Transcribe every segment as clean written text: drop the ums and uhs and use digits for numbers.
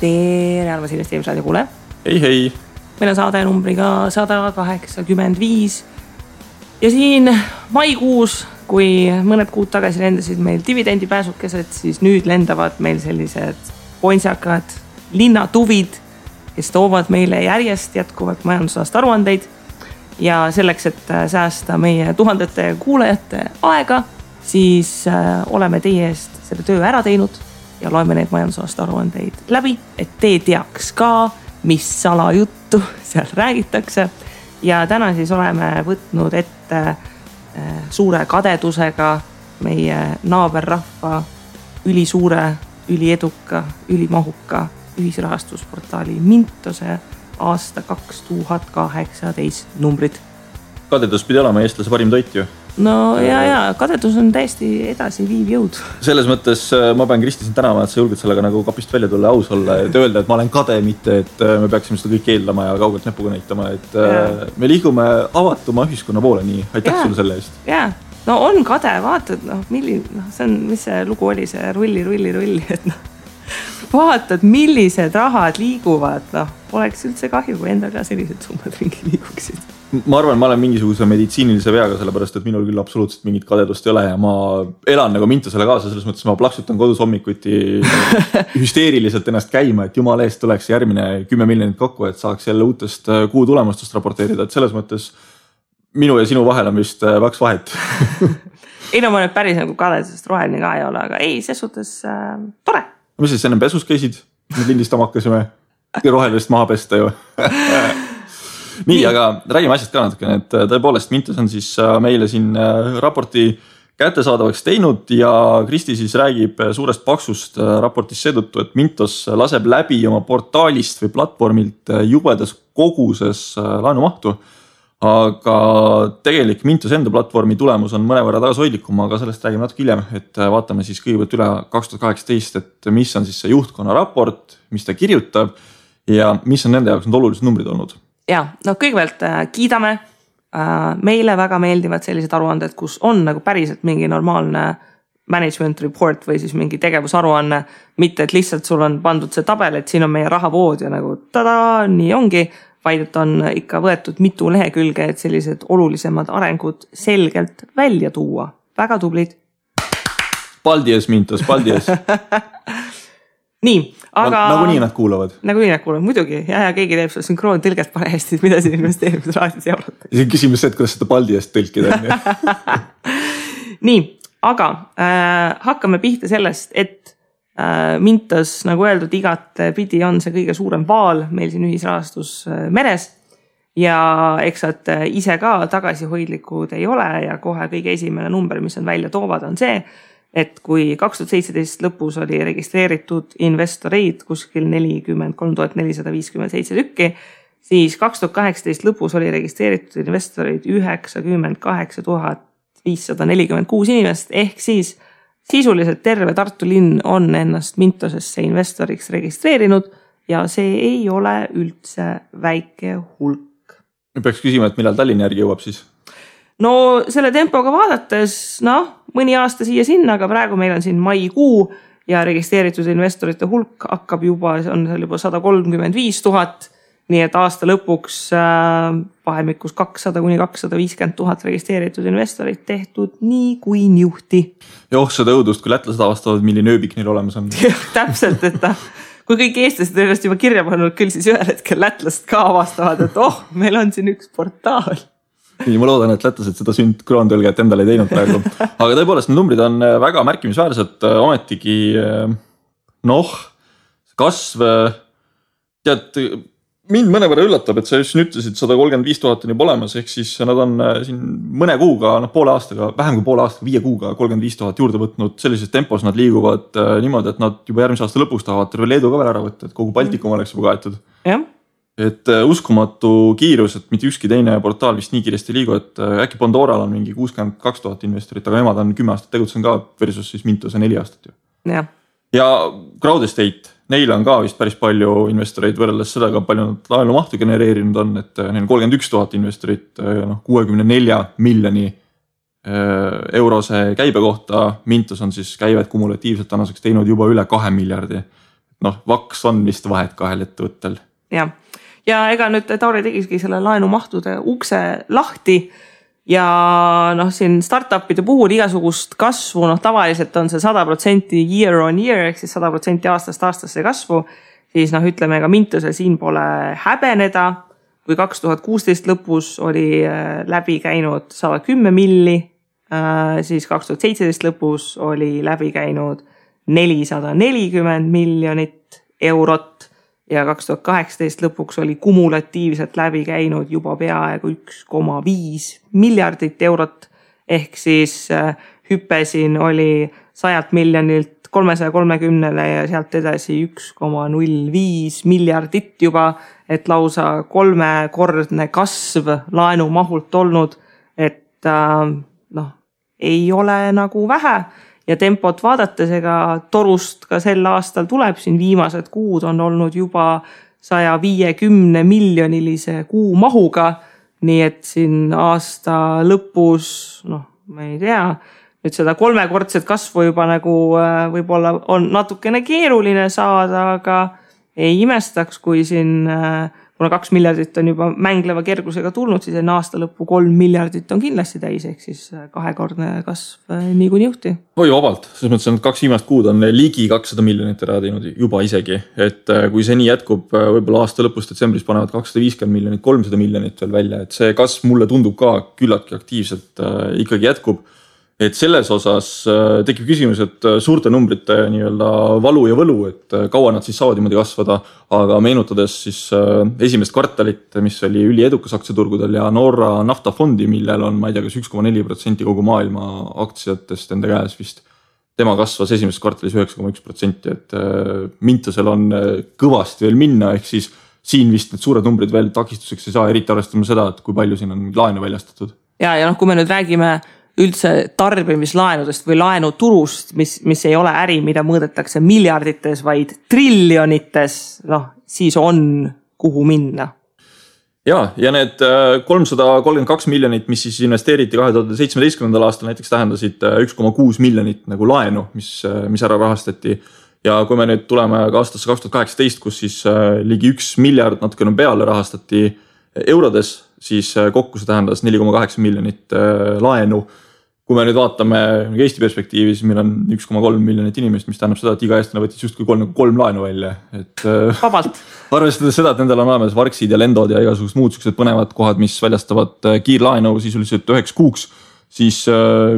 Tere, armas investeerimisraadio kuule. Hei. Meil on saade numbriga 185 ja siin maikuus, kui mõned kuud tagasi lendasid meil dividendipääsukesed, siis nüüd lendavad meil sellised pointsakad linnatuvid, kes toovad meile järjest jätkuvalt majandusaasta aruandeid ja selleks, et säästa meie tuhandete kuulajate aega, siis oleme teie eest selle töö ära teinud ja loeme need majandusaasta aruandeid läbi, et te teaks ka, mis salajuttu seal räägitakse. Ja täna siis oleme võtnud ette suure kadedusega meie naaberrahva ülisuure, ülieduka, ülimahuka ühisrahastusportaali Mintose aasta 2018 numbrid. Kadedus pidi olema eestlase parim toit ju. No ja, kadedus on täiesti edasi viiv jõud. Selles mõttes ma pean Kristi sind tänama, et sa julged sellega nagu kapist välja tulla, aus olla ja öelda, et ma olen kade, mitte et me peaksime seda kõik eeldama ja kaugelt näpuga näitama. Et me liigume avatuma ühiskonna poole, nii aitäh sulle selle eest. Jaa, no on kade, vaatad, see on, mis see lugu oli, see rulli, et vaatad, millised rahad liiguvad, poleks üldse kahju, kui endal ka sellised summad ringi liiguksid. Ma arvan, ma olen mingisuguse meditsiinilise veaga, sellepärast, et minul küll absoluutselt mingit kadedust ei ole ja ma elan nagu Mintosele kaasa, selles mõttes ma plaksutan kodus hommikuti hüsteeriliselt ennast käima, et jumala eest tuleks järgmine 10 miljonit kokku, et saaks jälle uutest kuu tulemustest raporteerida, et selles mõttes minu ja sinu vahel on vist vaks vahet. Ei no ma nüüd päris nagu kadedusest roheline ka ei ole, aga ei, ses suhtes tore. Mis siis enne pesus käisid? Nüüd lindistama hakkasime rohelist maha pesta ju. Nii, aga räägime asjast ka natukene, et tõepoolest Mintos on siis meile siin raporti kättesaadavaks teinud ja Kristi siis räägib suurest paksust raportis seetõttu, et Mintos laseb läbi oma portaalist või platvormilt jubedas koguses laenumahtu. Aga tegelik Mintos enda platvormi tulemus on mõnevõrra tagasihoidlikum, aga sellest räägime natuke hiljem, et vaatame siis kõigepealt üle 2018, et mis on siis see juhtkonna raport, mis ta kirjutab ja mis on nende jaoks need olulised numbrid olnud. Ja, no kõigepealt kiidame. Meile väga meeldivad sellised aruanded, kus on nagu päriselt mingi normaalne management report või siis mingi tegevusaruanne, mitte et lihtsalt sul on pandud see tabel, et siin on meie rahavood ja nagu tada, nii ongi, vaid et on ikka võetud mitu lehekülge, et sellised olulisemad arengud selgelt välja tuua. Väga tublid. Paldies, Mintos, paldies. Nii, aga... Nagunii nad kuulavad. Nagunii nad kuulavad, muidugi. Ja keegi teeb seda synkroon tõlget parajasti, mida siin investeerimisraadios jauratakse. See on küsimus see, et kuidas seda paldiest tõlkida. Nii, aga hakkame pihta sellest, et Mintos, nagu öeldud, igat pidi on see kõige suurem vaal meil siin ühisrahastus meres ja eks et ise ka tagasihoidlikud ei ole ja kohe kõige esimene number, mis on välja toovad, on see, et kui 2017 lõpus oli registreeritud investoreid kuskil 43 457 tükki, siis 2018 lõpus oli registreeritud investoreid 98 546 inimest, ehk siis sisuliselt terve Tartu linn on ennast Mintosesse investoriks registreerinud ja see ei ole üldse väike hulk. Peaks küsima, et millal Tallinna järgi jõuab siis? No selle tempoga vaadates, mõni aasta siia sinna, aga praegu meil on siin maikuu ja registreeritud investorite hulk hakkab juba, on seal juba 135 000, nii et aasta lõpuks vahemikus 200 kuni 250 000 registreeritud investorid tehtud nii kui niuhti. Joh, seda õudust, kui lätlased avastavad, milline ööbik neil olemas on. Täpselt, et kui kõik eestlased ennast juba kirja pannud, küll siis ühel hetkel lätlased ka avastavad, et meil on siin üks portaal. Nii, ma loodan, et lätlased seda sündkroondõlget endale ei teinud praegu. Aga tõepoolest, need numbrid on väga märkimisväärsed, ometigi kasv, tead, mind mõnevõrra üllatab, et sa just ütlesid 135 000 on juba olemas, ehk siis nad on siin mõne kuuga, poole aastaga, vähem kui poole aastaga, 5 kuuga 35 000 juurde võtnud, sellises tempos nad liiguvad niimoodi, et nad juba järgmise aasta lõpuks tahavad terve Leedu ka veel ära võtta, et kogu Baltikum oleks juba kaetud. Jah. Et uskumatu kiirus, et mitte ükski teine portaal vist nii kiiresti liigu, et äkki Pandoral on mingi 62 000 investorit, aga nemad on 10 aastat tegutsen ka versus siis Mintose 4 aastat ju. Ja Crowdestate, neil on ka vist päris palju investoreid võrreldes sellega, palju nad laenumahtu genereerinud on, et neil on 31 000 investorit 64 miljoni eurose käibe kohta. Mintos on siis käivet kumulatiivselt tänaseks teinud juba üle 2 miljardi. vaks on vist vahet kahel ettevõttel. Ja ega nüüd Tauri tegiski selle laenumahtude ukse lahti ja siin startupide puhul igasugust kasvu, tavaliselt on see 100% year on year ehk siis 100% aastast aastasse kasvu, siis ütleme ka Mintusel siin pole häbeneda, kui 2016 lõpus oli läbi käinud 110 milli, siis 2017 lõpus oli läbi käinud 440 miljonit eurot ja 2018 lõpuks oli kumulatiivselt läbi käinud juba peaaegu 1,5 miljardit eurot. Ehk siis hüpe siin oli 100 miljonilt 330 ja sealt edasi 1,05 miljardit juba, et lausa 3-kordne kasv laenumahult olnud, et ei ole nagu vähe. Ja tempot vaadates ega torust ka sel aastal tuleb, siin viimased kuud on olnud juba 150 miljonilise kuu mahuga, nii et siin aasta lõpus, ma ei tea, nüüd seda 3-kordset kasvu juba nagu võib-olla on natukene keeruline saada, aga ei imestaks, kui siin, kuna 2 miljardit on juba mängleva kergusega tulnud, siis enne aasta lõppu 3 miljardit on kindlasti täis, ehk siis 2-kordne kasv niikuinii juhti. Oi vabalt, selles mõttes on 2 viimast kuud on ligi 200 miljonit ära teinud juba isegi, et kui see nii jätkub, võib-olla aasta lõpus detsembris panevad 250 miljonit, 300 miljonit veel välja, et see kasv mulle tundub ka küllaltki aktiivselt ikkagi jätkub. Et selles osas tekib küsimus, et suurte numbrite nii-öelda valu ja võlu, et kaua nad siis saavad niimoodi kasvada, aga meenutades siis esimest kvartalit, mis oli üliedukas aktsiaturgudel ja Norra naftafondi, millel on, ma ei tea, kas 1,4% kogu maailma aktsiatest enda käes vist. Tema kasvas esimeses kvartalis 9,1%, et Mintusel on kõvasti veel minna, ehk siis siin vist need suured numbrid veel takistuseks ei saa, eriti arvestama seda, et kui palju siin on laenu väljastatud. Ja kui me nüüd räägime üldse tarbimislaenudest või laenuturust, mis ei ole äri, mida mõõdetakse miljardites, vaid triljonites, siis on kuhu minna. Ja need 332 miljonit, mis siis investeeriti 2017. aastal näiteks tähendasid 1,6 miljonit nagu laenu, mis ära rahastati. Ja kui me nüüd tuleme ka aastasse 2018, kus siis ligi 1 miljard natukene peale rahastati eurodes, siis kokku see tähendas 4,8 miljonit laenu. Kui me nüüd vaatame Eesti perspektiivis, meil on 1,3 miljonit inimest, mis tähendab seda, et iga eestlane võttis justkui 3 laenu välja. Et vabalt. Arvestades seda, et nendel on olemas Varksid ja Lendod ja igasugused muud sellised põnevad kohad, mis väljastavad kiirlaenu sisuliselt 9 kuuks, siis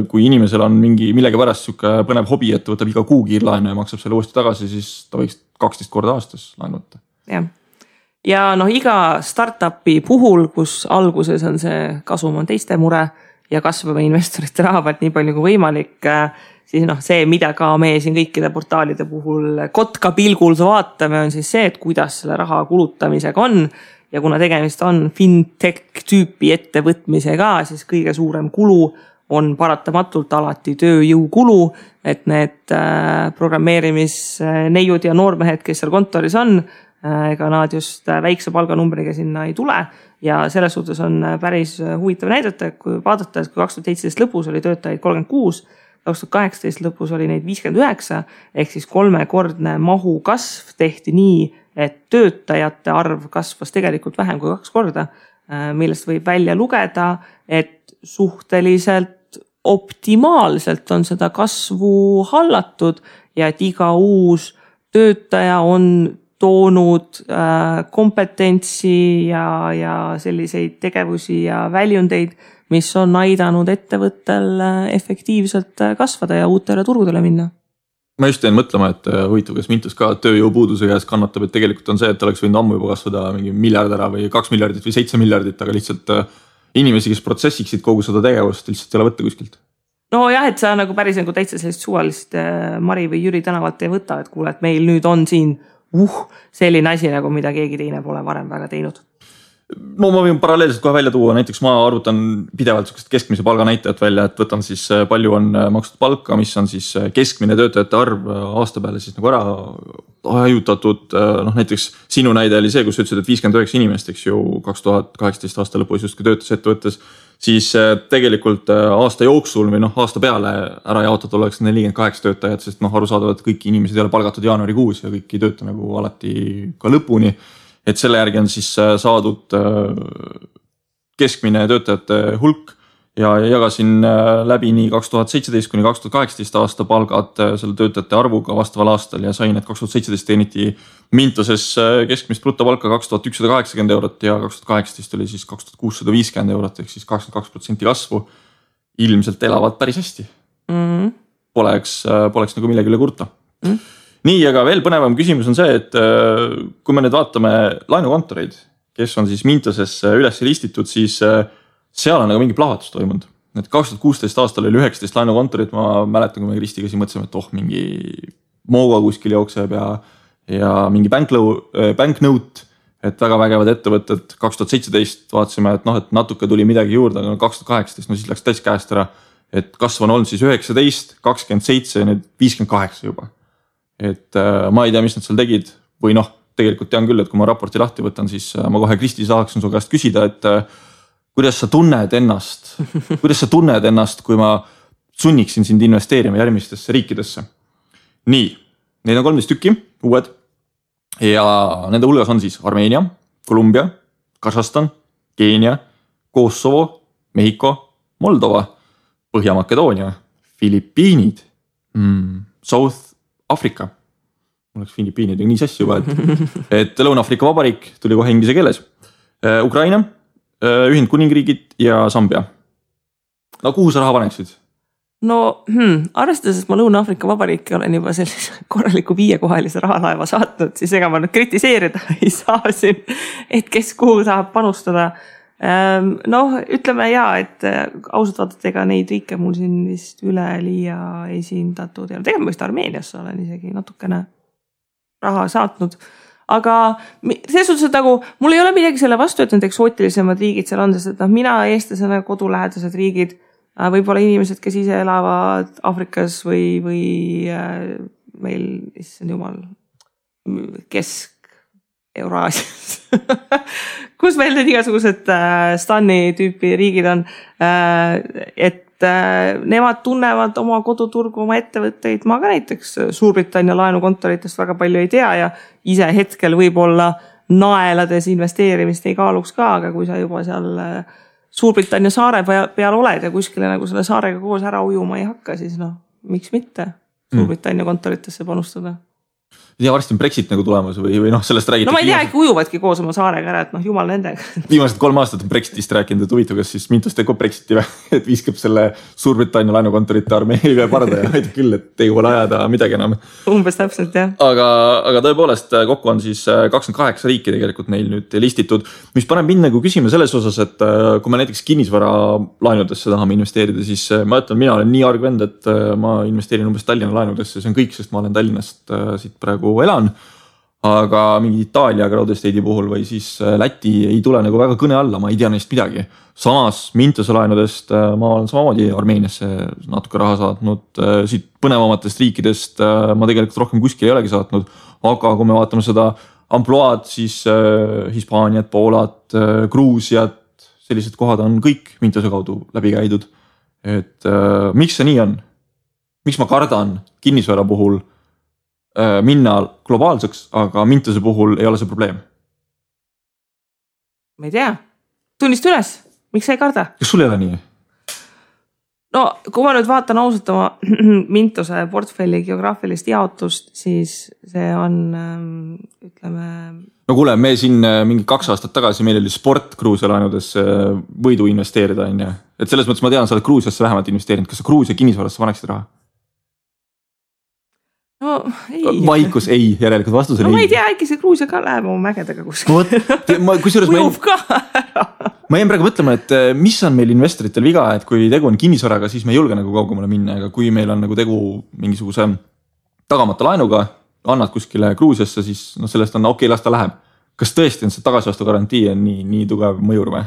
kui inimesel on millegi pärast siuke põnev hobi, et võtab iga kuu kiirlaenu ja maksab selle uuesti tagasi, siis ta võiks 12 korda aastas laenu võtta. Ja iga startupi puhul, kus alguses on see kasum on teiste mure, ja kasvame investorite raha pealt nii palju kui võimalik, siis see, mida ka meie siin kõikide portaalide puhul kotka pilgul vaatame, on siis see, et kuidas selle raha kulutamisega on. Ja kuna tegemist on fintech tüüpi ettevõtmisega, siis kõige suurem kulu on paratamatult alati tööjõukulu, et need programmeerimisneiud ja noormehed, kes seal kontoris on, ega nad just väikse palganumbriga sinna ei tule. Ja selles suhtes on päris huvitav näidata, kui vaadata, et kui 2017 lõpus oli töötajaid 36, 2018 lõpus oli neid 59, ehk siis 3-kordne mahu kasv tehti nii, et töötajate arv kasvas tegelikult vähem kui 2 korda, millest võib välja lugeda, et suhteliselt optimaalselt on seda kasvu hallatud ja et iga uus töötaja on toonud kompetentsi ja selliseid tegevusi ja väljundeid, mis on aidanud ettevõttel efektiivselt kasvada ja uutele turgudele minna. Ma just jäin mõtlema, et huvitav, kas Mintus ka tööjõupuuduse käes kannatab, et tegelikult on see, et oleks võinud ammu juba kasvada mingi miljard ära või 2 miljardit või 7 miljardit, aga lihtsalt inimesi, kes protsessiksid kogu seda tegevust, lihtsalt ei ole võtta kuskilt. Et sa nagu päris nagu täitsa sellist suvalist Mari või Jüri tänavalt ei võta, et kuule, et meil nüüd on siin selline asi, nagu mida keegi teine pole varem väga teinud. No ma võin paralleelselt kohe välja tuua, näiteks ma arvutan pidevalt keskmise palga näitajat välja, et võtan siis palju on makstud palka, mis on siis keskmine töötajate arv aasta peale siis nagu ära hajutatud. Noh, näiteks sinu näide oli see, kus sa ütlesid, et 59 inimest, eks ju, 2018 aasta lõpus justkui töötas ettevõttes, siis tegelikult aasta jooksul või noh, aasta peale ära jaotatud oleks 48 töötajat, sest noh, arusaadavalt kõik inimesed ei ole palgatud jaanuarikuus ja kõik ei tööta nagu alati ka lõpuni. Et selle järgi on siis saadud keskmine töötajate hulk ja jagasin läbi nii 2017 kuni 2018 aasta palgad selle töötajate arvuga vastaval aastal ja sain, et 2017 teeniti Mintoses keskmist brutopalka 2180 eurot ja 2018 oli siis 2650 eurot ehk siis 22% kasvu. Ilmselt elavad päris hästi. Poleks nagu millegi üle kurta. Nii, aga veel põnevam küsimus on see, et kui me nüüd vaatame laenukontoreid, kes on siis Mintoses üles listitud, siis seal on nagu mingi plahvatus toimunud. Et 2016 aastal oli 19 laenukontorit, ma mäletan, kui me Kristiga siin mõtlesime, et mingi Mooga kuskil jookseb ja mingi banknote, et väga vägevad ettevõtted. 2017 vaatasime, et noh, et natuke tuli midagi juurde, aga 2018, no siis läks täis käest ära, et kasv on olnud siis 19, 27 ja nüüd 58 juba. Et ma ei tea, mis nad seal tegid või noh, tegelikult tean küll, et kui ma raporti lahti võtan, siis ma kohe Kristi saaksin su käest küsida, et kuidas sa tunned ennast, kui ma sunniksin sind investeerima järgmistesse riikidesse. Nii, neid on 13 tükki, uued ja nende hulgas on siis Armeenia, Kolumbia, Kasahstan, Keenia, Kosovo, Mehhiko, Moldova, Põhja-Makedoonia, Filipiinid, South Afrika, mul oleks Filipiinid nii sassi juba, et Lõuna-Afrika Vabariik tuli kohe inglise keeles, Ukraina, Ühendkuningriigid ja Zambia. No kuhu sa raha paneksid? No arvestades, et ma Lõuna-Afrika Vabariiki olen juba sellise korraliku 5-kohalise rahalaeva saatnud, siis ega ma nüüd kritiseerida ei saa siin, et kes kuhu saab panustada. Noh, ütleme et ausalt vaadata, ega neid riike mul siin vist üleliia esindatud ja tegelikult ma vist Armeeniasse olen isegi natukene raha saatnud, aga selles suhtes, et nagu mul ei ole midagi selle vastu, et need eksootilisemad riigid seal on, sest et mina eestlasena kodulähedased riigid, võib-olla inimesed, kes ise elavad Afrikas või meil, issand jumal, Kesk-Euraasias kus meil need igasugused Stani tüüpi riigid on, et nemad tunnevad oma koduturgu, oma ettevõtteid. Ma ka näiteks Suurbritannia laenukontoritest väga palju ei tea ja ise hetkel võib-olla naelades investeerimist ei kaaluks ka, aga kui sa juba seal Suurbritannia saare peal oled ja kuskile nagu selle saarega koos ära ujuma ei hakka, siis noh, miks mitte Suurbritannia kontoritesse panustada. Ja varsti on Brexit nagu tulemas või noh, sellest räägitakse. No ma ei tea, äkki ujuvadki koos oma saarega ära, et noh, jumal nendega. Viimased 3 aastat on Brexitist rääkinud, et huvitav, kas siis Mintos teeb Brexiti või, et viskab selle Suurbritannia laenukontorite armeeile parda ja aitab küll, et ei ole ajada midagi enam. Umbes täpselt, jah. Aga tõepoolest kokku on siis 28 riiki tegelikult neil nüüd listitud, mis paneb mind nagu küsima selles osas, et kui me näiteks kinnisvara laenudesse tahame investeerida, siis ma ütlen, mina olen nii argvend, et ma investeerin umbes Tallinna laenudesse, see on kõik, sest ma olen Tallinnast siit praegu elan, aga mingi Itaalia Crowdestate'i puhul või siis Läti ei tule nagu väga kõne alla, ma ei tea neist midagi. Samas Mintose laenudest ma olen samamoodi Armeeniasse natuke raha saatnud, siit põnevamatest riikidest ma tegelikult rohkem kuskil ei olegi saatnud, aga kui me vaatame seda amploaad, siis Hispaaniat, Poolat, Gruusiat, sellised kohad on kõik Mintose kaudu läbi käidud. Et miks see nii on? Miks ma kardan kinnisvara puhul minna globaalseks, aga Mintose puhul ei ole see probleem? Ma ei tea. Tunnist üles. Miks sa ei karda? Kas sul ei ole nii? No, kui ma nüüd vaatan ausalt oma Mintose portfelli geograafilist jaotust, siis see on, ütleme... No kuule, me siin mingi 2 aastat tagasi meil oli sport Gruusia laenudesse võidu investeerida, on ja? Et selles mõttes ma tean, sa oled Gruusiasse vähemalt investeerinud. Kas sa Gruusia kinnisvarasse paneksid raha? No ei. Vaikus ei, järelikult vastus on ei. No ma ei tea, äkki see Gruusia ka läheb oma mägedega kuskil. Ujub ka ära. Ma jäin praegu mõtlema, et mis on meil investoritel viga, et kui tegu on kinnisvaraga, siis me ei julge nagu kaugemale minna, aga kui meil on nagu tegu mingisuguse tagamata laenuga, annad kuskile Gruusiasse, siis no sellest on okei, las ta läheb. kas tõesti on see tagasivastu garantii on nii tugev mõjur või?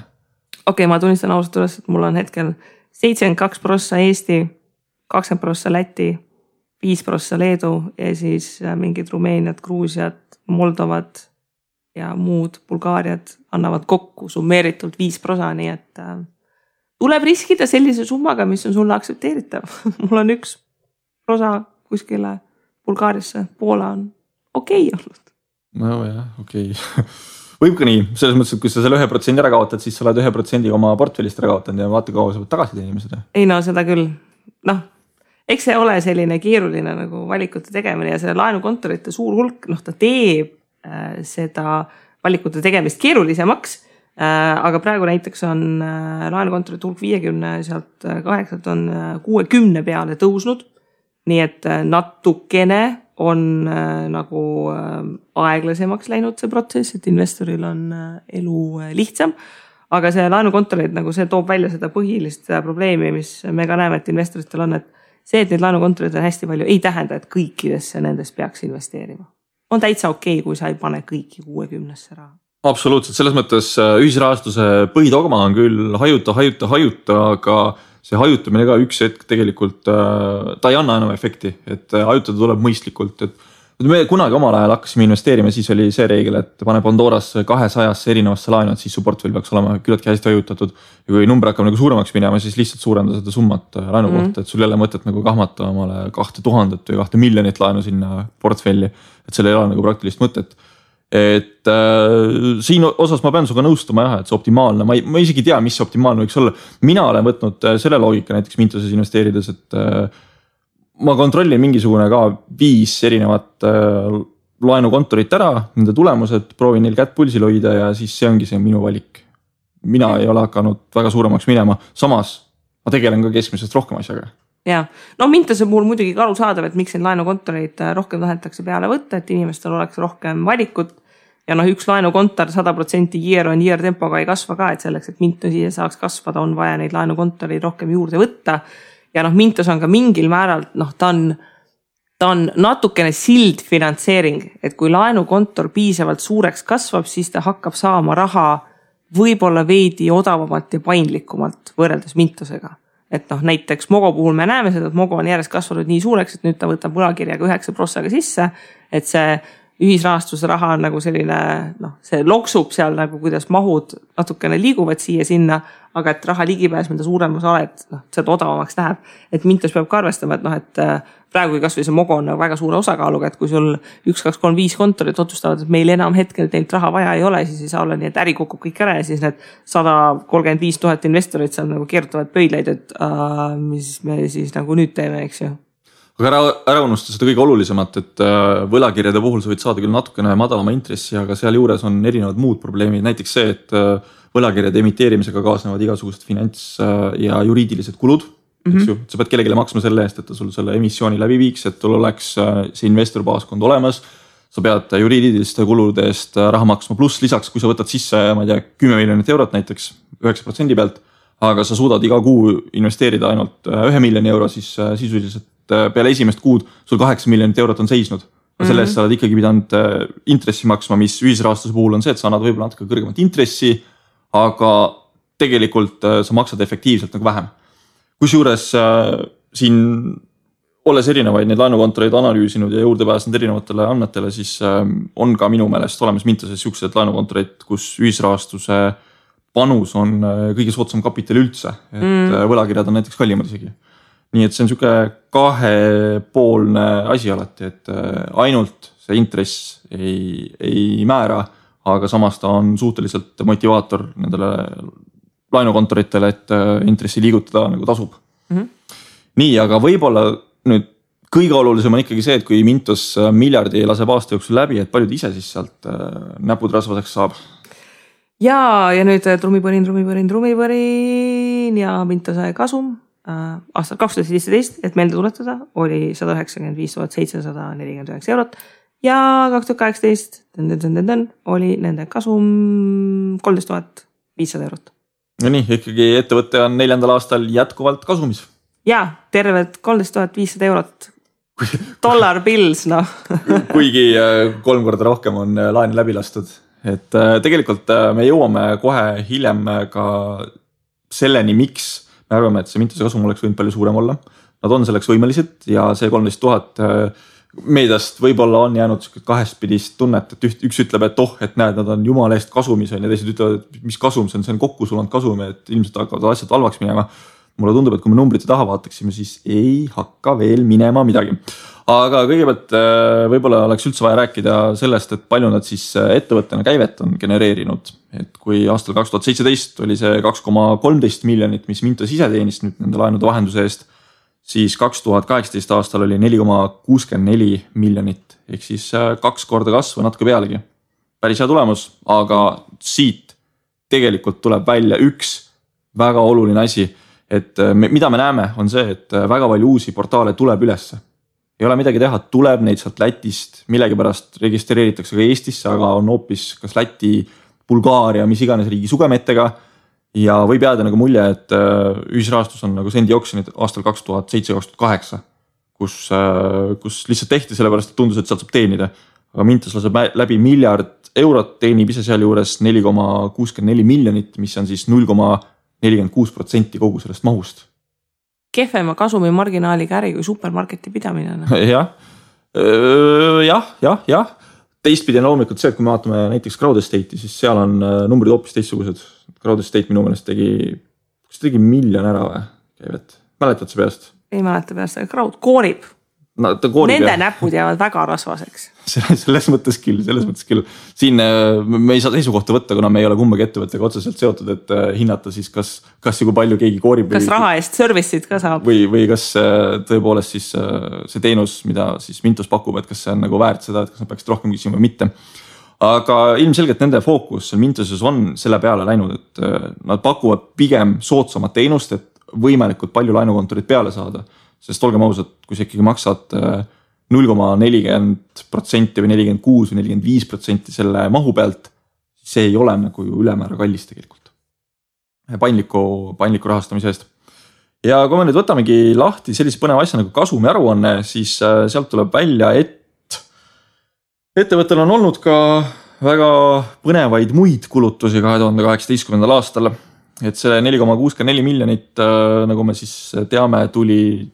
Okei, ma tunnistan ausalt üles, et mul on hetkel 72% Eesti, 20% Läti, 5% Leedu ja siis mingid Rumeeniad, Gruusiad, Moldovad ja muud Bulgaariad annavad kokku summeeritult 5%, nii et tuleb riskida sellise summaga, mis on sulle aktsepteeritav. Mul on 1% kuskile Bulgaariasse, Poola on okei olnud. No jah, okei. Võib ka nii, selles mõttes, et kui sa selle 1% ära kaotad, siis sa oled 1% oma portfellist ära kaotanud ja vaata kaua sa võid tagasi teenima seda. Ei no seda küll. Noh, eks see ole selline keeruline nagu valikute tegemine ja see laenukontorite suur hulk, ta teeb seda valikute tegemist keerulisemaks, aga praegu näiteks on laenukontorite hulk 50, sealt 8 on 60 peale tõusnud, nii et natukene on nagu aeglasemaks läinud see protsess, et investoril on elu lihtsam, aga see laenukontorid nagu see toob välja seda põhilist probleemi, mis me ka näeme, et investoritel on, et see, et neid laenukontorid on hästi palju, ei tähenda, et kõikidesse nendest peaks investeerima. On täitsa okei, kui sa ei pane kõiki 60-sse raha. Absoluutselt, selles mõttes ühisrahastuse põhidogma on küll hajuta, aga see hajutamine ka üks hetk tegelikult, ta ei anna enam efekti, et hajutada tuleb mõistlikult, et me kunagi omal ajal hakkasime investeerima, siis oli see reegel, et pane Pandoras 200 erinevasse laenu, et siis su portfell peaks olema küllaltki hästi hajutatud ja kui number hakkab nagu suuremaks minema, siis lihtsalt suurenda seda summat laenu kohta, et sul jälle mõtet nagu kahmata omale 2000 või 2 miljonit laenu sinna portfelli, et selle ei ole nagu praktilist mõtet. Et siin osas ma pean suga nõustuma jah, et see optimaalne, ma isegi tea, mis optimaalne võiks olla. Mina olen võtnud selle loogika näiteks Mintoses investeerides, et ma kontrollin mingisugune ka 5 erinevat laenukontorit ära, nende tulemused, proovin neil kätt pulsil hoida ja siis see ongi see minu valik. Mina ei ole hakanud väga suuremaks minema, samas ma tegelen ka keskmisest rohkem asjaga. Ja, no Mintose puhul muidugi ka aru saadav, et miks neid laenukontoreid rohkem tahetakse peale võtta, et inimestel oleks rohkem valikut ja üks laenukontor 100% year on year tempoga ei kasva ka, et selleks, et Mintosi saaks kasvada, on vaja neid laenukontoreid rohkem juurde võtta ja Mintos on ka mingil määral, ta on natukene sild finantseering, et kui laenukontor piisavalt suureks kasvab, siis ta hakkab saama raha võib-olla veidi odavamalt ja paindlikumalt võrreldes Mintosega. Et näiteks Mogo puhul me näeme seda, et Mogo on järjest kasvanud nii suureks, et nüüd ta võtab võlakirjaga 9% sisse, et see ühisrahastuse raha on nagu selline, see loksub seal nagu, kuidas mahud natukene liiguvad siia sinna, aga et raha ligipääs, mida suuremas oled, seda odavamaks läheb. Et Mintos peab ka arvestama, et praegu kas või see Mogo on väga suure osakaaluga, et kui sul 1, 2, 3, 5 kontorit otsustavad, et meil enam hetkel teilt raha vaja ei ole, siis ei saa olla nii, et äri kukub kõik ära ja siis need 135 000 investorit seal nagu keerutavad pöidleid, et mis me siis nagu nüüd teeme, eks ju. Aga ära unusta seda kõige olulisemat, et võlakirjade puhul sa võid saada küll natukene madalama intressi, aga seal juures on erinevad muud probleemid. Näiteks see, et võlakirjade emiteerimisega kaasnevad igasugused finants- ja juriidilised kulud. Sa pead kellegile maksma selle eest, et ta sul selle emissiooni läbi viiks, et tul oleks see investorbaaskond olemas. Sa pead juriidiliste kulude eest raha maksma, pluss lisaks, kui sa võtad sisse, ma ei tea, 10 miljonit eurot näiteks 9% pealt, aga sa suudad iga kuu investeerida ainult 1 miljoni euro, siis sisuliselt peale esimest kuud sul 8 miljonit eurot on seisnud. Selle eest sa oled ikkagi pidanud intressi maksma, mis ühisrahastuse puhul on see, et sa annad võib-olla natuke kõrgemat intressi, aga tegelikult sa maksad efektiivselt nagu vähem. Kusjuures siin, olles erinevaid neid laenukontoreid analüüsinud ja juurde pääsnud erinevatele andmetele, siis on ka minu meelest olemas Mintoses siuksed laenukontoreid, kus ühisrahastuse panus on kõige soodsam kapital üldse, et võlakirjad on näiteks kallimad isegi. Nii et see on siuke kahepoolne asi alati, et ainult see intress ei määra, aga samas ta on suhteliselt motivaator nendele laenukontoritele, et intressi liigutada nagu tasub. Nii, aga võib-olla nüüd kõige olulisem on ikkagi see, et kui Mintos miljardi laseb aasta jooksul läbi, et paljud ise siis sealt näpud rasvaseks saab. Ja nüüd trumipõrin ja Mintose kasum aastal 2017, et meelde tuletada, oli 195 749 eurot ja 2018 oli nende kasum 13 500 eurot. No nii, ikkagi ettevõtte on 4. aastal jätkuvalt kasumis. Ja, tervelt 13 500 eurot. Dollar bills, Kuigi 3 korda rohkem on laen läbi lastud. et tegelikult me jõuame kohe hiljem ka selleni, miks me arvame, et see Mintose kasum oleks võinud palju suurem olla. Nad on selleks võimelised ja see 13 000 meediast võib-olla on jäänud kahespidist tunnet, et üks ütleb, et et näed, nad on jumala eest kasumis ja teised ütlevad, et mis kasum see on kokku sulanud kasum, et ilmselt hakkavad asjad halvaks minema. Mulle tundub, et kui me numbrite taha vaataksime, siis ei hakka veel minema midagi. Aga kõigepealt võib-olla oleks üldse vaja rääkida sellest, et palju nad siis ettevõttena käivet on genereerinud. Et kui aastal 2017 oli see 2,13 miljonit, mis Mintos ise teenis nüüd nende laenude vahenduse eest, siis 2018 aastal oli 4,64 miljonit, ehk siis 2 korda kasvu natuke pealegi. Päris hea tulemus, aga siit tegelikult tuleb välja üks väga oluline asi, et mida me näeme on see, et väga palju uusi portaale tuleb ülesse. Ei ole midagi teha, tuleb neid sealt Lätist, millegipärast registreeritakse ka Eestisse, aga on hoopis kas Läti, Bulgaaria, mis iganes riigi sugemetega. Ja võib jääda nagu mulje, et ühisrahastus on nagu sendi oksjonid aastal 2007-2008, kus lihtsalt tehti sellepärast, et tundus, et sealt saab teenida. Aga Mintos laseb läbi €1 miljard, teenib ise seal juures 4,64 miljonit, mis on siis 0,46% kogu sellest mahust. Kehvema kasumi marginaaliga äri kui supermarketi pidamine. Jah. Teistpidi on loomulikult see, et kui me vaatame näiteks Crowd Estate'i, siis seal on numbrid hoopis teistsugused. Crowd Estate minu meelest tegi $1 miljon ära või käivet? Mäletad sa peast? Ei mäleta peast, aga Crowd koorib. No, nende näpud jäävad väga rasvaseks. Selles mõttes küll. Siin me ei saa seisukohta võtta, kuna me ei ole kumbagi ettevõttega otseselt seotud, et hinnata siis kas ja kui palju keegi koorib. Kas raha eest service'id ka saab? Või kas tõepoolest siis see teenus, mida siis Mintos pakub, et kas see on nagu väärt seda, et kas nad peaksid rohkem küsima või mitte. Aga ilmselgelt nende fookus Mintoses on selle peale läinud, et nad pakuvad pigem soodsamat teenust, et võimalikult palju laenukontorid peale saada. Sest olgem ausad, kui sa ikkagi maksad 0,40% või 46% või 45% selle mahu pealt, see ei ole nagu ülemäära kallis tegelikult. Paindliku rahastamise eest. Ja kui me nüüd võtamegi lahti sellise põneva asja nagu kasumi aruanne, siis sealt tuleb välja, et ettevõttel on olnud ka väga põnevaid muid kulutusi 2018. aastal. Et see 4,64 miljonit, nagu me siis teame, tuli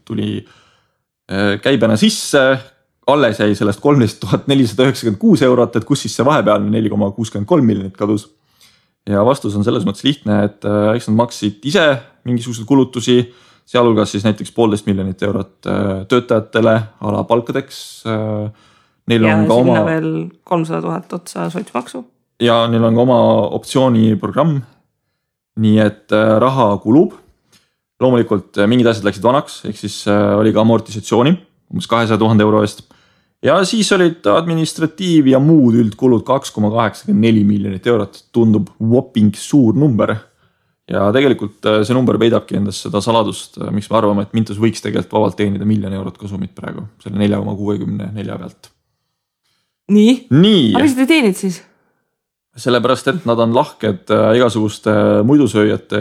käibena sisse, alles jäi sellest 13 496 €, et kus siis see vahepealne 4,63 miljonit kadus. Ja vastus on selles mõttes lihtne, et eks nad maksid ise mingisuguseid kulutusi, sealhulgas siis näiteks 1,5 miljonit eurot töötajatele alapalkadeks. Neil ja on ka sinna veel 300 000 otsa sotsmaksu. Ja neil on ka oma optsiooniprogramm. Nii et raha kulub. Loomulikult mingid asjad läksid vanaks, ehk siis oli ka amortisatsiooni, umbes 200 000 € eest. Ja siis olid administratiiv ja muud üldkulud 2,84 miljonit eurot. Tundub whopping suur number. Ja tegelikult see number peidabki endast seda saladust, miks me arvame, et Mintos võiks tegelikult vabalt teenida $1 miljon kasumit praegu, selle 4,64 pealt. Nii? Aga mis te teenid siis? Sellepärast, et nad on lahked igasuguste muidusööjate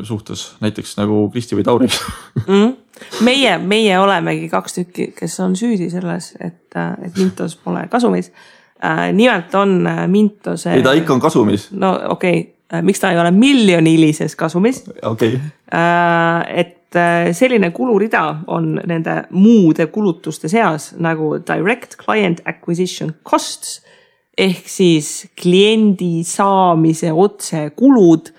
suhtes, näiteks nagu Kristi või Tauri. Meie olemegi 2 tükki, kes on süüdi selles, et Mintos pole kasumis. Nimelt on Mintose... Ei, ta ikka on kasumis. No okei, miks ta ei ole miljonilises kasumis? Okei. Et selline kulurida on nende muude kulutuste seas nagu Direct Client Acquisition Costs, ehk siis kliendi saamise otse kulud,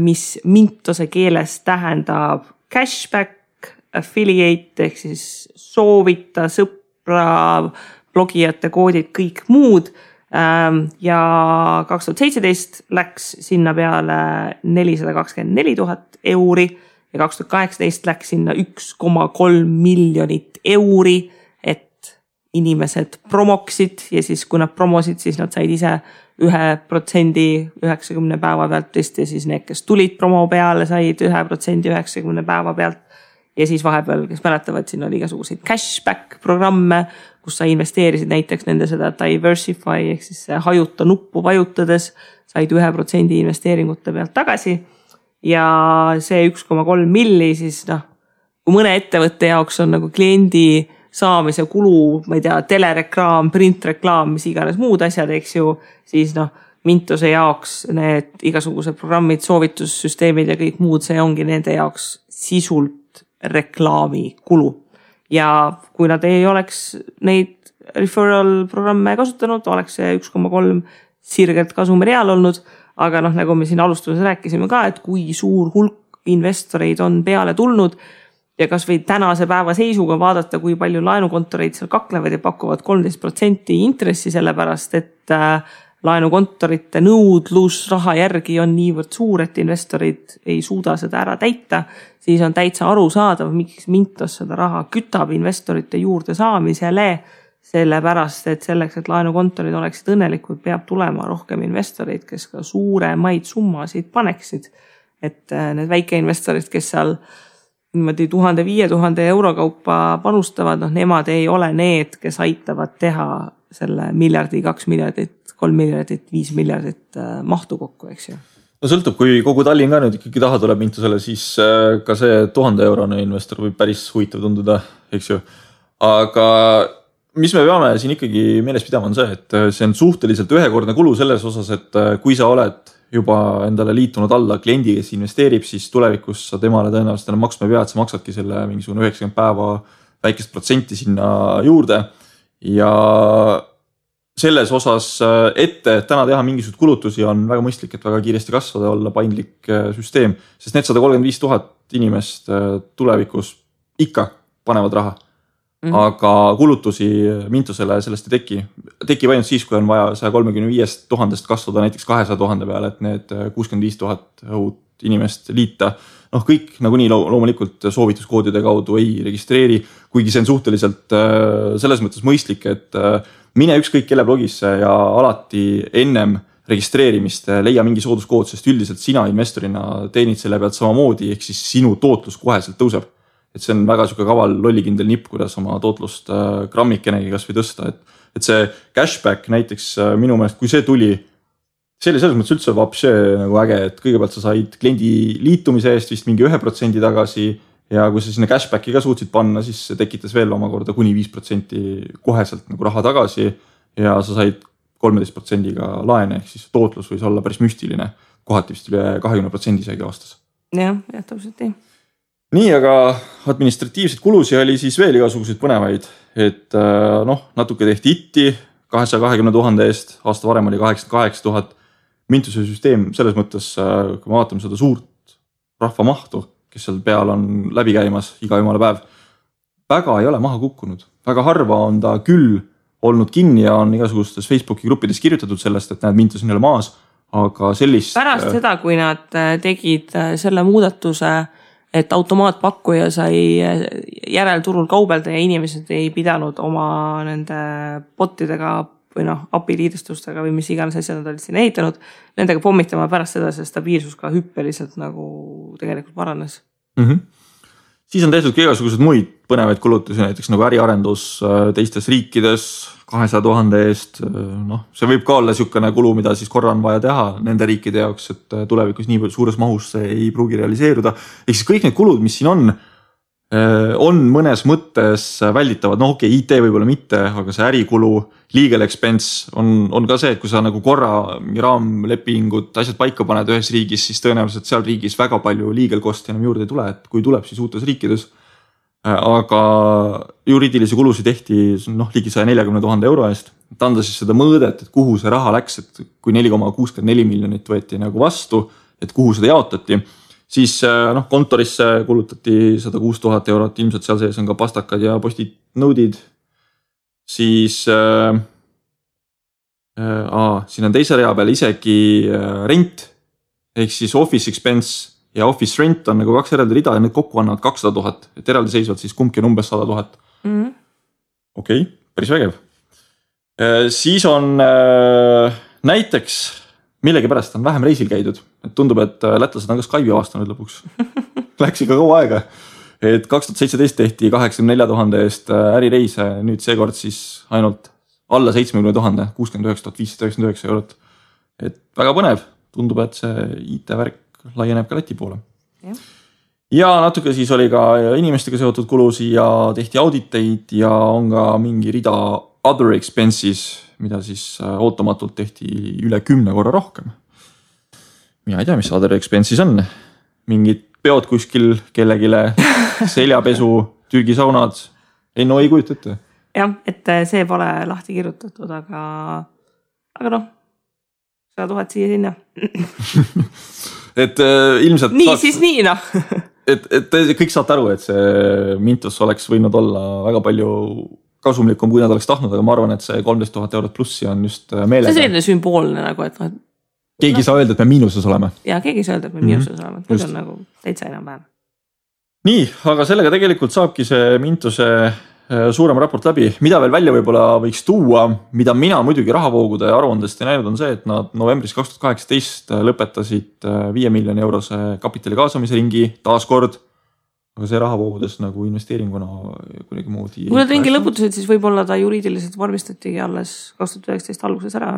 mis Mintose keeles tähendab cashback, affiliate ehk siis soovita, sõpra, blogijate koodid, kõik muud. Ja 2017 läks sinna peale 424 000 € ja 2018 läks sinna 1,3 miljonit €, inimesed promoksid ja siis kui nad promosid, siis nad said ise 1% 90 päeva pealt ja siis need, kes tulid promo peale, said 1% 90 päeva pealt. Ja siis vahepeal, kes mäletavad, siin oli igasuguseid cashback programme, kus sa investeerisid näiteks nende seda diversify ehk siis hajuta nuppu vajutades, said 1% investeeringute pealt tagasi. Ja see 1,3 milli siis kui mõne ettevõtte jaoks on nagu kliendi saamise kulu, ma ei tea, telereklaam, printreklaam, mis iganes muud asjad, eks ju, siis Mintose jaoks need igasugused programmid, soovitussüsteemid ja kõik muud, see ongi nende jaoks sisult reklaamikulu. Ja kui nad ei oleks neid referral programme kasutanud, oleks see 1,3 sirgelt kasumireal olnud, aga nagu me siin alustuses rääkisime ka, et kui suur hulk investoreid on peale tulnud ja kas või tänase päeva seisuga vaadata, kui palju laenukontoreid seal kaklevad ja pakuvad 13% intressi, sellepärast et laenukontorite nõudlus raha järgi on niivõrd suur, et investorid ei suuda seda ära täita, siis on täitsa arusaadav, miks Mintos seda raha kütab investorite juurde saamisele, sellepärast et selleks, et laenukontorid oleksid õnnelikud, peab tulema rohkem investoreid, kes ka suuremaid summasid paneksid. Et need väikeinvestorid, kes seal niimoodi 1000–5000 euro kaupa panustavad, nemad ei ole need, kes aitavad teha selle miljardi, 2 miljardit, 3 miljardit, 5 miljardit mahtu kokku, eks ju. No sõltub, kui kogu Tallinn ka nüüd ikkagi taha tuleb Mintosele, siis ka see 1000 eurone investor võib päris huvitav tunduda, eks ju. Aga mis me peame siin ikkagi meeles pidama on see, et see on suhteliselt ühekordne kulu selles osas, et kui sa oled juba endale liitunud alla kliendi, kes investeerib, siis tulevikus sa temale tõenäoliselt enam maksma ei pea, et sa maksadki selle mingisugune 90 päeva väikest protsenti sinna juurde ja selles osas ette täna teha mingisugused kulutusi on väga mõistlik, et väga kiiresti kasvada, olla paindlik süsteem, sest need 135 000 inimest tulevikus ikka panevad raha. Aga kulutusi Mintosele sellest ei teki. Tekib ainult siis, kui on vaja 135 000 kasvada näiteks 200 000 peale, et need 65 000 uut inimest liita. Kõik nagunii loomulikult soovituskoodide kaudu ei registreeri, kuigi see on suhteliselt selles mõttes mõistlik, et mine ükskõik kelle blogisse ja alati ennem registreerimist leia mingi sooduskood, sest üldiselt sina investorina teenid selle pealt samamoodi, ehk siis sinu tootlus koheselt tõuseb. Et see on väga suke kaval lollikindel nipp, kuidas oma tootlust grammikenegi kas või tõsta. Et see cashback näiteks minu meelest, kui see tuli, see oli selles mõttes üldse vapše nagu äge, et kõigepealt sa said kliendi liitumise eest vist mingi 1% tagasi ja kui sa sinna cashbacki ka suutsid panna, siis see tekitas veel omakorda kuni 5% koheselt nagu raha tagasi ja sa said 13%-ga laene, ehk siis tootlus võis olla päris müstiline, kohati vist üle 20% isegi aastas. Jah, täpselt nii. Nii, aga administratiivseid kulusi oli siis veel igasuguseid põnevaid, et natuke tehti itti 220 000 eest, aasta varem oli 88 000. Mintuse süsteem selles mõttes, kui me vaatame seda suurt rahvamahtu, kes seal peal on läbi käimas iga jumala päev, väga ei ole maha kukkunud. Väga harva on ta küll olnud kinni ja on igasugustes Facebooki gruppides kirjutatud sellest, et näed, Mintus on jälle maas, aga sellist... Pärast seda, kui nad tegid selle muudatuse, et automaatpakkuja sai järelturul kaubelda ja inimesed ei pidanud oma nende botidega või API-liidestustega või mis iganes asjad nad olid siin ehitanud, nendega pommitama pärast seda see stabiilsus ka hüppeliselt nagu tegelikult paranes. Siis on tehtud igasugused muid põnevaid kulutusi, näiteks nagu äriarendus teistes riikides 200 000 eest. See võib ka olla niisugune kulu, mida siis korra on vaja teha nende riikide jaoks, et tulevikus nii suures mahus see ei pruugi realiseeruda. Ehk siis kõik need kulud, mis siin on mõnes mõttes välditavad. Okei, IT võib-olla mitte, aga see ärikulu, legal expense on ka see, et kui sa nagu korra raamlepingud, asjad paika paned ühes riigis, siis tõenäoliselt seal riigis väga palju legal cost enam juurde ei tule, et kui tuleb siis uutes riikides. Aga juriidilisi kulusid tehti ligi 140 000 euro eest. Et anda siis seda mõõdet, et kuhu see raha läks, et kui 4,64 miljonit võeti nagu vastu, et kuhu seda jaotati, siis kontorisse kulutati 106 000 eurot, ilmselt seal sees on ka pastakad ja postid nõudid. Siis siin on teise rea peal isegi rent, ehk siis office expense ja office rent on nagu 2 eraldi rida ja need kokku annavad 200 000, et eraldi seisvad siis kumbki on umbes 100 000. Okei, päris vägev. Siis on näiteks millegipärast on vähem reisil käidud. Et tundub, et lätlased on ka Skype'i avastanud lõpuks. Läks ikka kaua aega. Et 2017 tehti 84 000 eest ärireise, nüüd seekord siis ainult alla 70 000, 69 599 eurot. Et väga põnev, tundub, et see IT-värk laieneb ka Läti poole. Ja natuke siis oli ka inimestega seotud kulusi ja tehti auditeid ja on ka mingi rida other expenses, mida siis ootamatult tehti üle 10 korra rohkem. Mina ei tea, mis other expenses on. Mingid peod kuskil kellegile, seljapesu, Türgi saunad. Ei kujuta ette. Jah, et see pole lahti kirjutatud, aga noh, 100 000 siia sinna. Et ilmselt nii saaks, siis nii noh. et kõik saate aru, et see Mintos oleks võinud olla väga palju kasumlikum, kui nad oleks tahtnud, aga ma arvan, et see 13 000 eurot plussi on just meelega. See on selline sümboolne nagu, et keegi ei saa öelda, et me miinuses oleme. Ja keegi ei saa öelda, et me miinuses oleme. Nüüd on nagu täitsa enam päev. Nii, aga sellega tegelikult saabki see Mintose suurem raport läbi. Mida veel välja võib-olla võiks tuua, mida mina muidugi rahavoogude aruandest ei näinud, on see, et nad novembris 2018 lõpetasid 5 miljoni eurose kapitali kaasamise ringi taaskord. Aga see rahavoogudes nagu investeeringuna kuidagi moodi. Kui nad ringi lõputasid, siis võib-olla ta juriidiliselt vormistatigi alles 2019 alguses ära.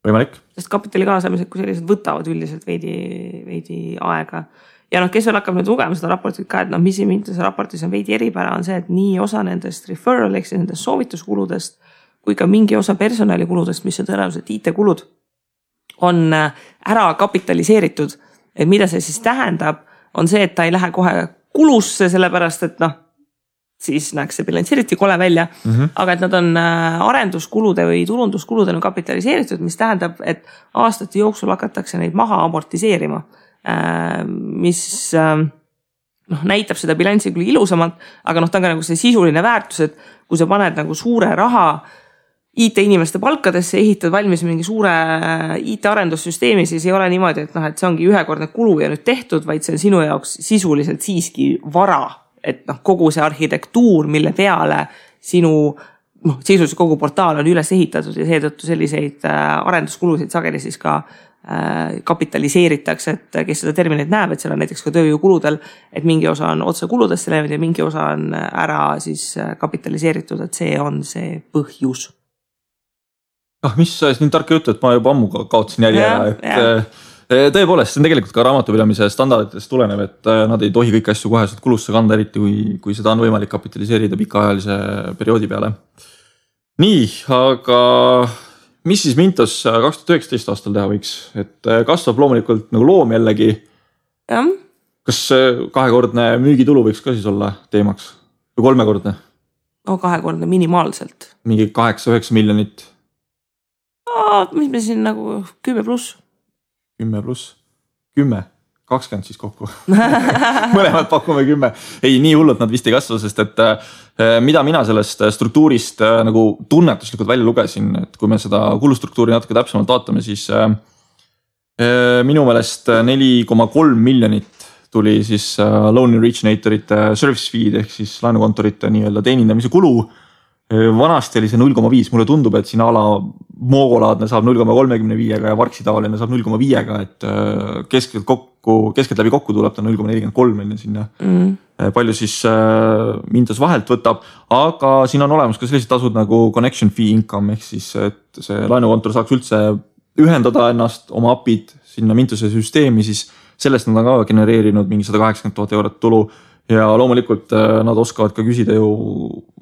Võimalik. Sest kapitali kaasamised, kui sellised võtavad üldiselt veidi aega. Ja kes veel hakkab nüüd lugema seda raportit ka, et mis Mintose raportis on veidi eripära, on see, et nii osa nendest referral, ehk nendest soovituskuludest, kui ka mingi osa personalikuludest, mis on tõenäoliselt IT-kulud, on ära kapitaliseeritud. Et mida see siis tähendab, on see, et ta ei lähe kohe kulusse, sellepärast, et siis näeks see bilansiriti kole välja, aga et nad on arenduskulude või turunduskulude kapitaliseeritud, mis tähendab, et aastate jooksul hakatakse neid maha amortiseerima. Mis näitab seda bilanssi küll ilusamalt, aga ta on ka nagu see sisuline väärtus, et kui sa paned nagu suure raha IT-inimeste palkadesse, ehitad valmis mingi suure IT-arendussüsteemi, siis ei ole niimoodi, et see ongi ühekordne kulu ja nüüd tehtud, vaid see on sinu jaoks sisuliselt siiski vara, et kogu see arhitektuur, mille peale sinu sisuliselt kogu portaal on üles ehitatud ja seetõttu selliseid arenduskulusid sageli siis ka kapitaliseeritakse, et kes seda terminit näeb, et seal on näiteks ka tööjõukuludel, et mingi osa on otse kuludesse läinud ja mingi osa on ära siis kapitaliseeritud, et see on see põhjus. Mis nii tarka juttu, et ma juba ammu kaotsin jälje ära, et tõepoolest, see on tegelikult ka raamatupidamise standarditest tulenev, et nad ei tohi kõiki asju koheselt kulusse kanda, eriti kui seda on võimalik kapitaliseerida pikaajalise perioodi peale. Nii, aga mis siis Mintos 2019 aastal teha võiks? Et kasvab loomulikult nagu loom jällegi. Ja. Kas 2-kordne müügitulu võiks ka siis olla teemaks? Või 3-kordne? 2-kordne minimaalselt. Mingi 8-9 miljonit? Mis me siin nagu 10 pluss? 10 pluss? 10? 20 siis kokku. Mõlemad pakume 10. Ei, nii hullult nad vist ei kasva, sest et mida mina sellest struktuurist nagu tunnetuslikult välja lugesin, et kui me seda kulustruktuuri natuke täpsemalt vaatame, siis minu meelest 4,3 miljonit tuli siis loan originatorite service feed ehk siis laenukontorite nii-öelda teenindamise kulu. Vanasti oli see 0,5, mulle tundub, et siin ala moogolaadne saab 0,35 ja Varksi tavaline saab 0,5, et keskelt läbi kokku tuleb ta 0,43 sinna. Palju siis Mintos vahelt võtab, aga siin on olemas ka sellised tasud nagu connection fee income ehk siis, et see laenukontor saaks üldse ühendada ennast oma apid sinna Mintose süsteemi, siis sellest nad on ka genereerinud mingi 180 000 eurot tulu. Ja loomulikult nad oskavad ka küsida ju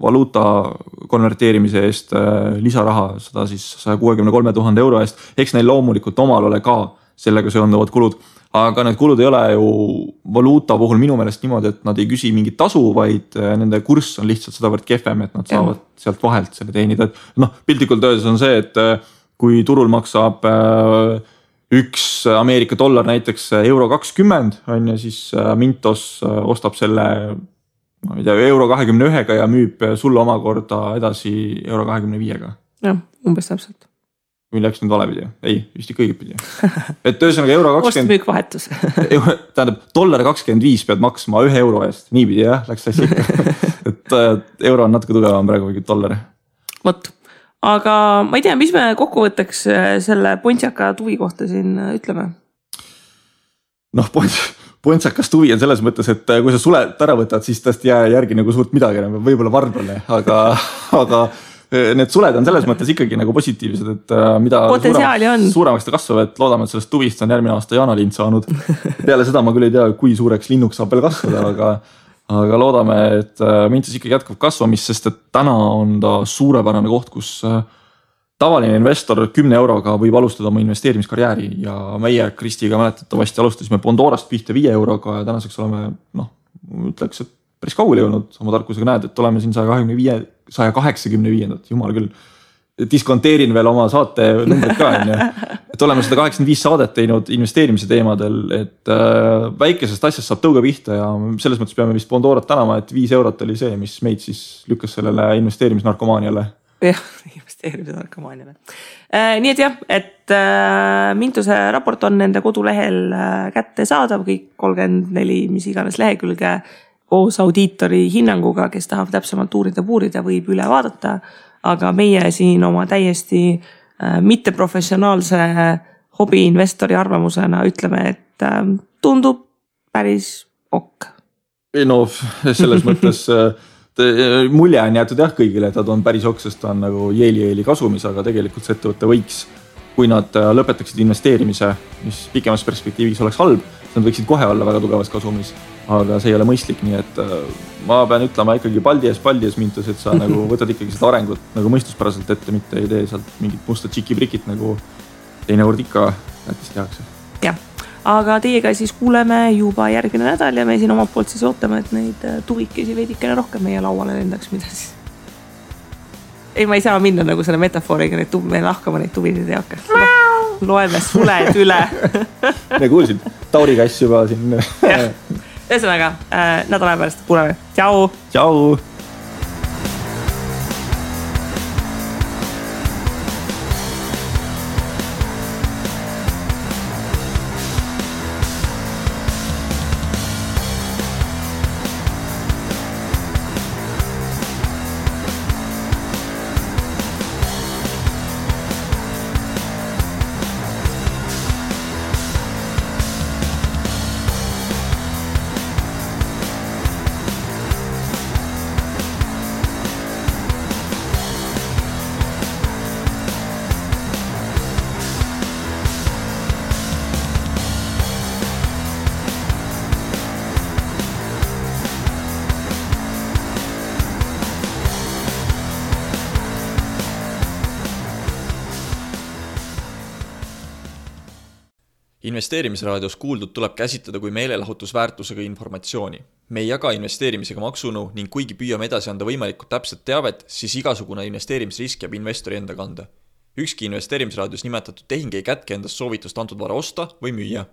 valuuta konverteerimise eest lisaraha, seda siis 163 000 euro eest. Eks neil loomulikult omal ole ka sellega seonduvad kulud, aga need kulud ei ole ju valuuta puhul minu meelest niimoodi, et nad ei küsi mingit tasu, vaid nende kurss on lihtsalt sedavõrd kehvem, et nad saavad sealt vahelt selle teenida. Piltlikult öeldes on see, et kui turul maksab üks Ameerika dollar näiteks €20 on ja siis Mintos ostab selle €21 ja müüb sulle omakorda edasi €25. Jah, umbes täpselt. Või läks nüüd valepidi? Ei, vist ikka õigepidi. Et ühesõnaga €20. Ostmüük vahetus. Tähendab, $25 pead maksma €1 eest. Niipidi jah, läks asja ikka. Et euro on natuke tugevam praegu kui dollar. Vot. Aga ma ei tea, mis me kokkuvõtteks selle Pontsaka tuvi kohta siin ütleme? Pontsakas tuvi on selles mõttes, et kui sa sulet ära võtad, siis tõesti jää järgi nagu suurt midagi, võib-olla varblane, aga need suled on selles mõttes ikkagi nagu positiivsed, et mida suuremaks ta kasvab, et loodame, et sellest tuvist on järgmine aasta jaanalind saanud. Peale seda ma küll ei tea, kui suureks linnuks saab veel kasvada, aga loodame, et Mintos ikkagi jätkab kasvamist, sest et täna on ta suurepärane koht, kus tavaline investor 10 euroga võib alustada oma investeerimiskarjääri ja meie Kristiga mäletatavasti alustasime Bondorast pihta 5 euroga ja tänaseks oleme, ütleks, et päris kaugele jõudnud oma tarkusega näed, et oleme siin 185, jumal küll, diskonteerin veel oma saate numbrid ka, et oleme 185 saadet teinud investeerimise teemadel, et väikesest asjast saab tõuga pihta ja selles mõttes peame vist Bondorat tänama, et 5 eurot oli see, mis meid siis lükkas sellele investeerimisnarkomaaniale. Jah, investeerimisnarkomaaniale. Nii et jah, et Mintuse raport on nende kodulehel kätte saadav, kõik 34, mis iganes lehekülge koos audiitori hinnanguga, kes tahab täpsemalt uurida, võib üle vaadata, aga meie siin oma täiesti mitteprofessionaalse hobiinvestori arvamusena ütleme, et tundub päris ok. No selles mõttes mulje on jäetud jah kõigile, et ta on päris ok, sest ta on nagu jeeli kasumis, aga tegelikult see ettevõte võiks, kui nad lõpetaksid investeerimise, mis pikemas perspektiivis oleks halb, nad võiksid kohe olla väga tugevas kasumis, aga see ei ole mõistlik, nii et ma pean ütlema ikkagi paldies Mintus, et sa nagu võtad ikkagi seda arengut nagu mõistuspäraselt ette, mitte ei tee sealt mingit musta tšiki-brikit nagu teinekord ikka jättis tehakse. Jah, aga teiega siis kuuleme juba järgmine nädal ja me siin omalt poolt siis ootame, et neid tuvikesi veidikene rohkem meie lauale lendaks, mida siis. Ei, ma ei saa minna nagu selle metafooriga, me lahkama neid tuvisid ei hakka. Loeme suled üle. Me kuulsid Tauri kass juba siin. Ühesõnaga, nädala pärast kuuleme. Tšau! Tšau! Investeerimisraadios kuuldud tuleb käsitleda kui meelelahutusväärtusega informatsiooni. Me ei jaga investeerimisega maksunu ning kuigi püüame edasi anda võimalikult täpset teavet, siis igasugune investeerimisrisk jääb investori enda kanda. Ükski investeerimisraadios nimetatud tehing ei kätke endast soovitust antud vara osta või müüa.